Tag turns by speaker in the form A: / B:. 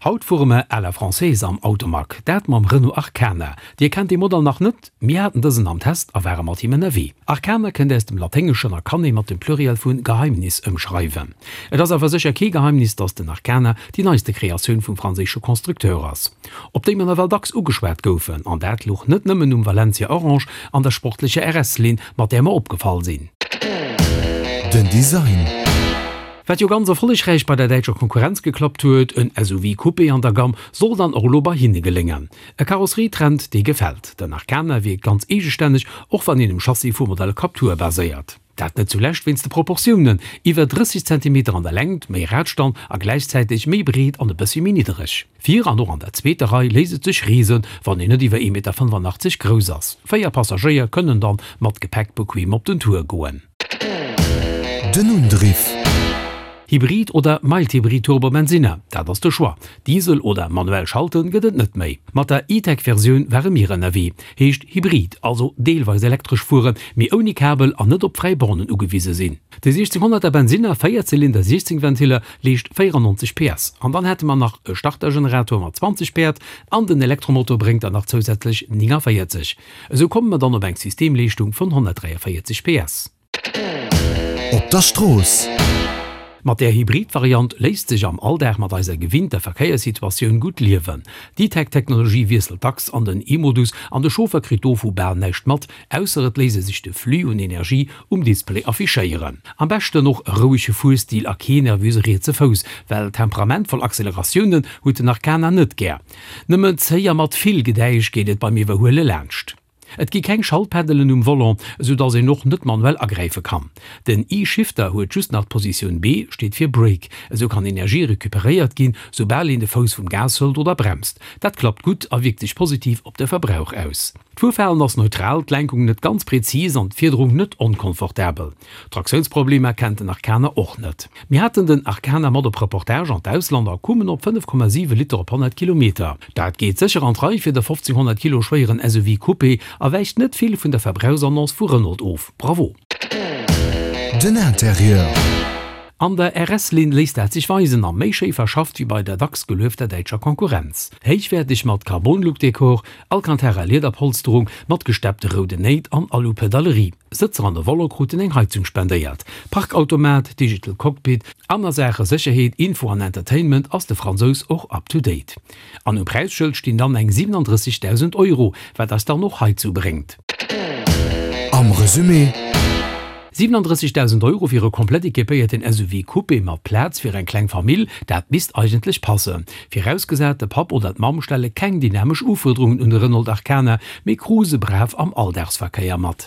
A: Haut fuere mer à la française am Automag, dat mam Renault Arkana. Dir kennt dee Modell nach net? Mir haten dësen am Test a ware mat him ënnerwee. Arkana kënnt aus dem Laténgeschen a kann ee mat dem Pluriel vu Geheimnis ëmschreiwen. Et ass awer sécher kee Geheimnis, datt den Arkana déi neiste Kreatioun vum franséische Constructeur ass, op déi mer nawell dacks ugeschwat goufen. An dat luch net nëmmen um Valencia Orange an der sportlecher RS-Linn, mat där mer opgefall sinn.
B: Den Design.
A: Wat jo ganz erfollegräich bei der däitscher Konkurrenz geklappt huet, en SUV Coupé an der Gamm, soll dann och elo bei hinne geléngen. E Karosserietrend, dee gefält. Den Arkana wierkt ganz eegestänneg, och wann een um Chassis vum Modell Captur baséiert. Dat net zulescht wéinst de Proportiounen, iwwer 30 Zentimeter an der Längt, méi Radstand a gläichzäiteg méi breet an e bëssi méi niddereg. Vir an och an der zweeter Rei léisst et sech reesen, wann een net iwwer 1,85 Meter grouss ass. 4 Passagéier kënnen dann mat Gepäck bequem op den Tour goen.
B: Den Undriff.
A: Hybrid oder Mild-Hybrid Turbo-Bensinner, dat ass de Choix. Diesel oder manuell schalten gëtt et net méi. Mat der E-Tech-Versioun ware mir ënnerwee. Heescht Hybrid, also deelweis elektresch fueren, mee ouni Kabel an net op fräi Bornen ugewise sinn. De 1600er Bensinner, 4 Zylinder, 16 Ventiller, leescht 94 PS. An dann hätte mer nach e Startergenerator mat 20 Päerd an den Elektromotor bréngt der nach zousätzlech 49. Esou komme mer dann op eng Systemleeschtung vun 143 PS.
B: Op der Strooss.
A: Mat där Hybrid-Variant léisst sech am Alldag mat eiser gewinnter Verkéierssituatioun gutt liewen. D'E-Tech-Technologie wiesselt dacks an den E-Modus an de Chauffer kritt dovu bal näischt mat, ausser et léisst e sech de Flux un Energie um Display affichéieren. Am beschten och e rouege Fuerstil a kee nervöse rietse Fouss, well temperamentvoll Acceleratiounen huet den Arkana net gär. Nëmmen zéi a mat vill Gedäisch geet et beim Iwwerhuele laanscht. Et gi keng Schaltpeddelen um Volant, esou dass een och net manuell agräife kann. Den E-Shifter huet just nach d'Positioun B, steet fir Brake. Esou kann Energie recuperéiert ginn, soubal een de Fouss vum Gas hëlt oder bremst. Dat klappt gutt a wierkt sech positiv op de Verbrauch aus. D'Fuerverhalen ass neutral, d'Lenkung net ganz präzis an d'Fiederung net onkomfortabel. Traktiounsproblemer kennt den Arkana och net. Mir haten den Arkana mat op Reportage an d'Ausland a kummen op 5,7 Liter op 100 Kilometer. Dat geet sécher an d'Rei fir de 1500 Kilo schwéieren SUV Coupé a wäicht net vill vun der Verbrauchsannonce vu Renault of. Bravo!
B: Den Interieur.
A: An der RS-Linn léisst dat sech weisen a méi schéi verschafft wéi bei der dacks geluefter däitscher Konkurrenz. Héichwäerteg mat Carbon-Look-Dekor, Alcantara-Liederpolsterung mat gesteppte rouden Néit an Alu-Pedalerie. Sëtzer an de Volant kruten eng Heizung spendéiert. Parkautomat, Digital Cockpit an a Saache Sécherheet, Info an Entertainment ass de Fransous och up to date. An um Präisschëld stinn dann eng 37.000 Euro, wat eis dann och heizou bréngt.
B: Am Resumé.
A: 37.000 Euro fir e komplett equipéierten SUV Coupé mat Plaz fir eng kleng Famill, dat misst eigentlech passen. Virausgesat, de Papp oder d'Mamm stelle keng dynamesch Ufuerderungen un de Renault Arkana, mee cruise brav am Alldagsverkéier mat.